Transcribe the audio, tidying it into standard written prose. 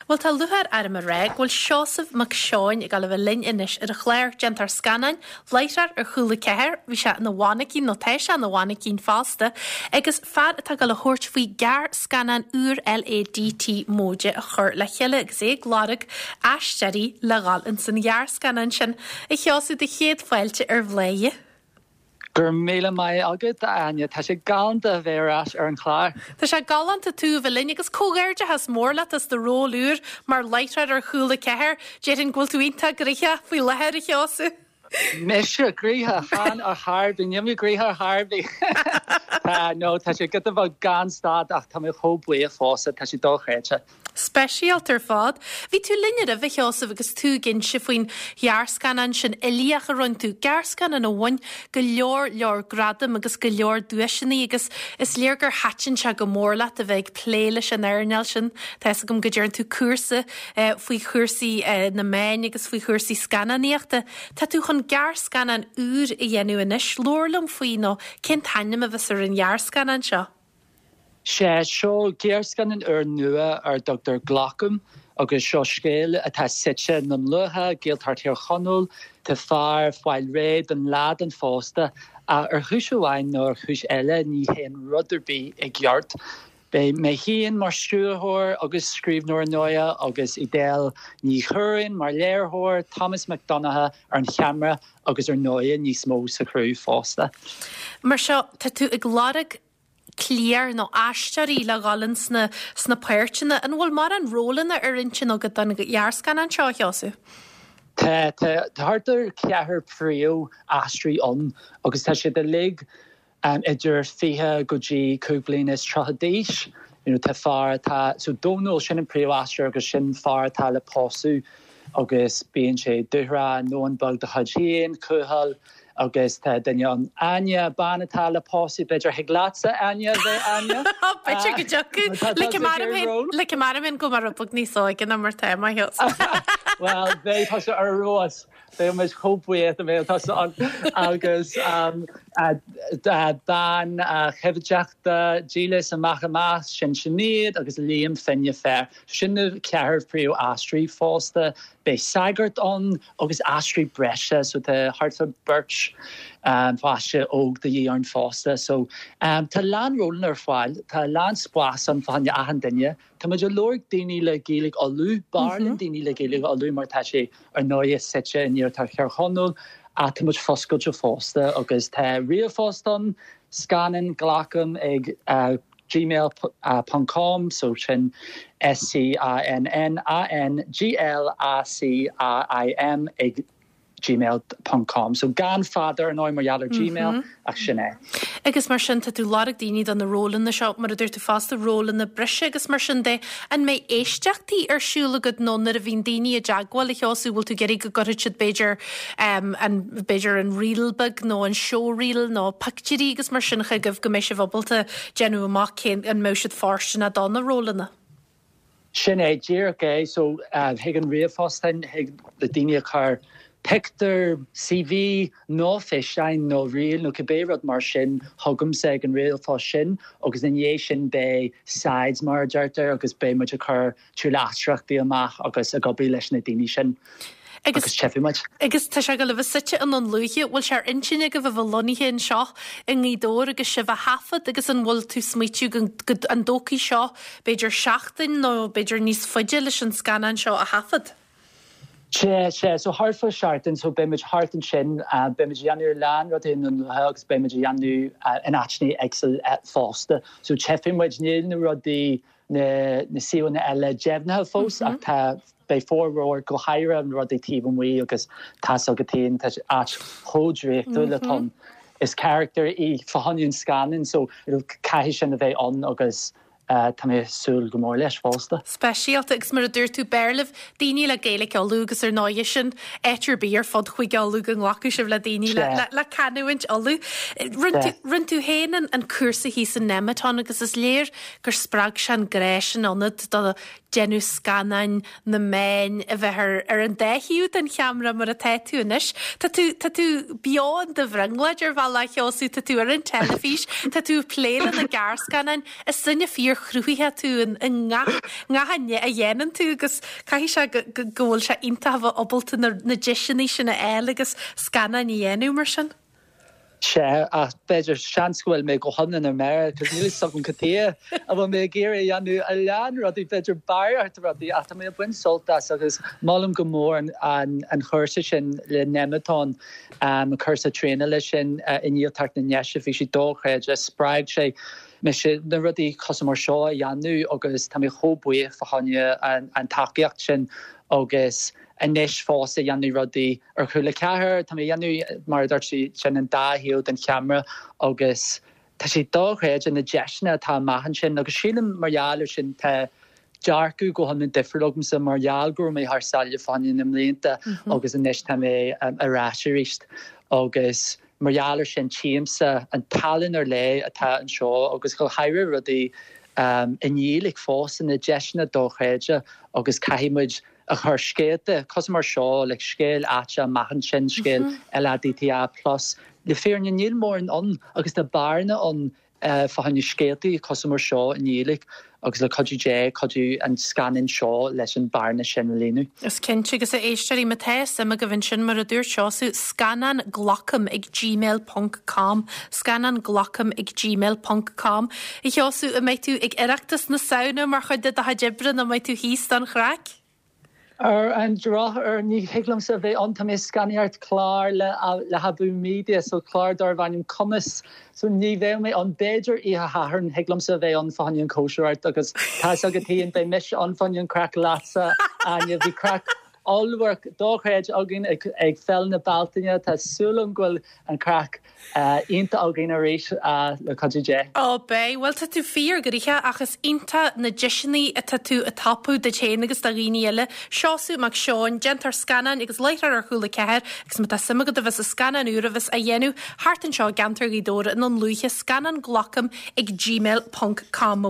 Bhuel, tá lúcháir orm a rá go bhfuil Seosamh Mac Seoin ag dul a bheith linn anois ar an chlár. Déantóir scannáin, láithreoir ar Chúla 4, bhí sé ina mhainicín, nó tá sé ina mhainicín fosta, agus fear atá ag dul a thabhairt faoi ghearrscannán úr LADT móide a chur le chéile agus é ag lorg aisteoirí le dhul ins an ghearrscannán sin. A Sheosaimh, do chéad fáilte ar Bhladhaire. Go raibh míle maith agat, a Áine. Tá sé galánta a bheith ar ais ar an chlár. Tá sé galánta tú a bheith linn agus comhghairdeachas mór leat as do ról úr mar láithreoir ar Chúla 4. Déarfainn go bhfuil tú iontach gnoitheach faoi láthair, a Sheosaimh. Mise gnoitheach? Chan ar chor ar bith. Níl mé gnoitheach ar chor ar bith. Tá, no, tá sé giota beag gan stad ach tá mé chomh buíoch fosta, tá sé dochreidte. Speisialta ar fad. Bhí tú linn roimhe, a Sheosaimh, agus tú ag inse faoin ghearrscannán sin uilíoch a rinne tú, gearrscannán a bhain go leor leor gradam agus go leor duaiseanna agus is léir gur thaitin sé go mór leat a bheith ag plé leis an earnáil sin. Tá fhios agam go dtearn tú cúrsa faoi chúrsaí na meáin agus faoi chúrsaí scannánaíochta. Tá tú chun gearrscannán úr a dhéanamh anois. Labhair liom faoi nó cén t-ainm a bheas ar an ghearrscannán seo? Sea, seo gearrscannán úr nua ar a dtugtar Glacaim agus seo scéal atá suite i nDún Lúiche, Gaeltacht Thír Chonaill. Tá fear ag fáil réidh don lá don phósta ach ar chúis amháin nó ar chúis eile ní théann rud ar bith i gceart. Beidh mé féin mar stiúrthóir agus scríbhneoir ar ndóighe agus Edel Ní Churraoin mar léiritheoir, Thomas Mac Donncha ar an cheamara agus ar ndóighe níos mó sa chriú fosta. Mar seo, tá tú ag lorg cliar nó aisteoirí le dhul ins na sna páirteanna. An bhfuil mórán rólanna ar intinn agat don ghearrscannán seo, a Sheosaimh? Tá, tá thart ar cheathrar príomh-aisteoirí ann agus tá siad uilig idir 20 go dtí 35 bliana d'aois. You know, tá fear atá, so Dónal, sin an príomh-aisteoir agus sin fear atá le pósadh agus bíonn sé dúthrach, i ndomhan beag dá chuid féin, cúthail, Agus tá duine ann, Áine, bean atá le pósadh, b'fhéidir thig leatsa, Áine, a bheith Áine. B'fhéidir go dtiocfadh. Like mar a go mar rud beag níos óige ná mar tá mé. Bhuel, beidh tusa ar fheabhas. Beidh muid chomh buíoch dá mbeadh tusa ann. Agus bean choimhdeachta dílis amach amach, sin Sinéad agus Liam Finne Fear. Sin na ceathrar príomh-aisteoirí fosta. Beidh sagart ann agus aisteoirí breise so tá thart fá beirt pháiste óg de dhíth ann fosta. So tá a lán rólanna ar fáil, tá a lán spás ann fá choinne achan duine. Tá muid ag lorg daoine le Gaeilge Uladh, b'fhearr linn daoine le Gaeilge Uladh mar tá sé ar ndóighe suite in iarthar Thír Chonaill ach tá muid foscailte fosta agus tá ríomhphost ann, scannán glacaim ag gmail ponc com so sin S C A N N A N G L A C A I M ag gmail ponc com so gan fada ar ndóigh mar gheall ar gmail ach sin é. Agus mar sin tá tú ag lorg daoine do na rólanna seo mar a dúirt tú fosta rólanna breise agus mar sin de. An mbeidh éisteachtaí ar siúl agat nó nuair a bhíonn daoine i dteagmháil a Sheosaimh bhfuil tú ag iarraidh go gcuirfidh siad b'fhéidir an, b'fhéidir an reel beag nó an showreel nó pictiúirí agus mar sin chugaibh go mbeidh sibh ábalta déanamh amach cén, an mbeadh siad fóirsteanach do na rólanna. Sin é, díreach é. So, chuig an ríomhphost sin, thig le daoine a chur pictiúr, CV nó físeáin nó reel nó cibé rud mar sin chugamsa ag an ríomhphost sin agus ina dhiaidh sin beidh sides mar a deirtear agus beidh muid ag cur tuilleadh aisteoireachtaí amach agus ag obair leis na daoine sin agus tchífidh muid. Agus tá sé ag dul a bheith suite i nDún Lúiche, bhfuil sé ar intinn agaibh a bheith lonnaithe anseo i nGaoth Dobhair agus sibh á thaifead agus an bhfuil tú smaoitiú go go an dtógfaidh seo b'fhéidir seachtain nó b'fhéidir níos faide leis an scannán seo a thaifead? Sea, sea, so thart fá seachtain, so beidh muid thart ansin, beidh muid a dhéanamh a lán rudaí i nDún Lúiche agus beidh muid a dhéanamh in áiteanna éagsúla fosta. So tchífidh muid, níl na rudaí na suíomhanna eile deimhnithe fós ach tá, beidh formhór, go háirithe na rudaí taobh amuigh agus tá's agat féin, tá áit chomh draíochtúil atá ann. Is carachtar í fá choinne an scannáin so caithfidh sin a bheith ann agus tá mé ag súil go mór leis fosta. Speisialta agus mar a dúirt tú, b'fhearr libh daoine le Gaeilge Uladh agus ar ndóighe sin áit ar bith ar fud Chúige Uladh go nglacfadh sibh le daoine le canúint Uladh. Rinne tú féin an cúrsa thíos in Nemeton agus is léir gur spreag sé an grá sin ionat do déanamh scannáin, na meáin, a bheith ar ar an dá thaobh den cheamara mar atá tú anois. Tá tú tá tú beo in do bhrionglóid ar bhealach, a Sheosaimh, tá tú ar an teilifís, tá tú ag plé le na gearrscannáin. Is duine fíor. fíor-chruthaitheach tú i ngach ngach a dhéanann tú agus caithfidh sé go go go bhfuil sé iontach a bheith ábalta na na deiseanna sin a fháil agus scannáin a dhéanamh mar sin. Sea, ach b'fhéidir, seans go bhfuil mé go hiomlán ar mire, cos níl fhios agam cad chuige a bhfuil mé ag iarraidh a dhéanamh a lán rudaí, b'fhéidir barraíocht rudaí, ach tá mé ag baint sult as agus molaim go mór an an chúrsa sin le Nemeton, an cúrsa traenála sin i nGaeltacht na nDéise, bhí sé dochreidte, spreag sé mise na rudaí cosúil mar seo a dhéanamh agus tá mé chomh buíoch fá choinne an tacaíocht sin agus anois fosta ag déanamh rudaí ar Cúla 4, tá mé ag déanamh, mar a dúirt tú, sin an dá thaobh den cheamara agus tá sé dochreidte na deiseanna atá amach ansin agus sílim mar gheall ar sin tá dearcadh go hiomlán difriúil agamsa mar gheall go raibh mé thar sáile fá choinne na mblianta agus anois tá mé ar ais arís agus mar gheall ar sin tchímse an tallann ar leith atá anseo agus go háirithe rudaí i nGaeilge fosta, na deiseanna dochreidte agus caithfidh muid a chur scéalta cosúil mar seo, like scéal áite amach ansin, scéal LADTA plus. Le fírinne níl mórán ann agus tá bearna ann fá choinne scéaltaí cosúil mar seo i nGaeilge agus le cuidiú Dé, cuideoidh an scannán seo leis an bearna sin a líonadh. Is cinnte, agus a éisteoirí, má tá suim agaibh ansin, mar a dúirt Seosamh, scannán glacaim ag gmail ponc com, scannán glacaim ag gmail ponc com. A Sheosaimh, an mbeidh tú ag Oireachtas na Samhna mar chuid de do chuid oibre nó an mbeidh tú thíos don chraic? Ar an drochuair, ní thig liomsa a bheith ann, tá mé ag scannánaíocht clár le le hAbú Media, so clár darb ainm Cumas, so ní bheidh mé ann. B'fhéidir oíche Shathairn, thig liomsa a bheith ann fá choinne an chóisireacht agus tá fhios agat féin, beidh mise ann fá choinne an craic leatsa, Áine. Bhí craic ollmhór dochreidte againn ag Féile na Bealtaine, tá súil agam go bhfuil an craic iontach againn arís le cuidiú Dé. Ó beidh, bhuel tá tú fíor gnoitheach ach is iontach na deiseanna atá tú ag tapú duit féin agus do dhaoine eile. Seosamh Mac Seoin, déantóir scannáin agus láithreoir ar Chúla 4 agus má tá suim agat a bheith sa scannán úr a bheas á dhéanamh thart anseo i gceantar Ghaoth Dobhair i nDún Lúiche, scannán glacaim ag gmail ponc com.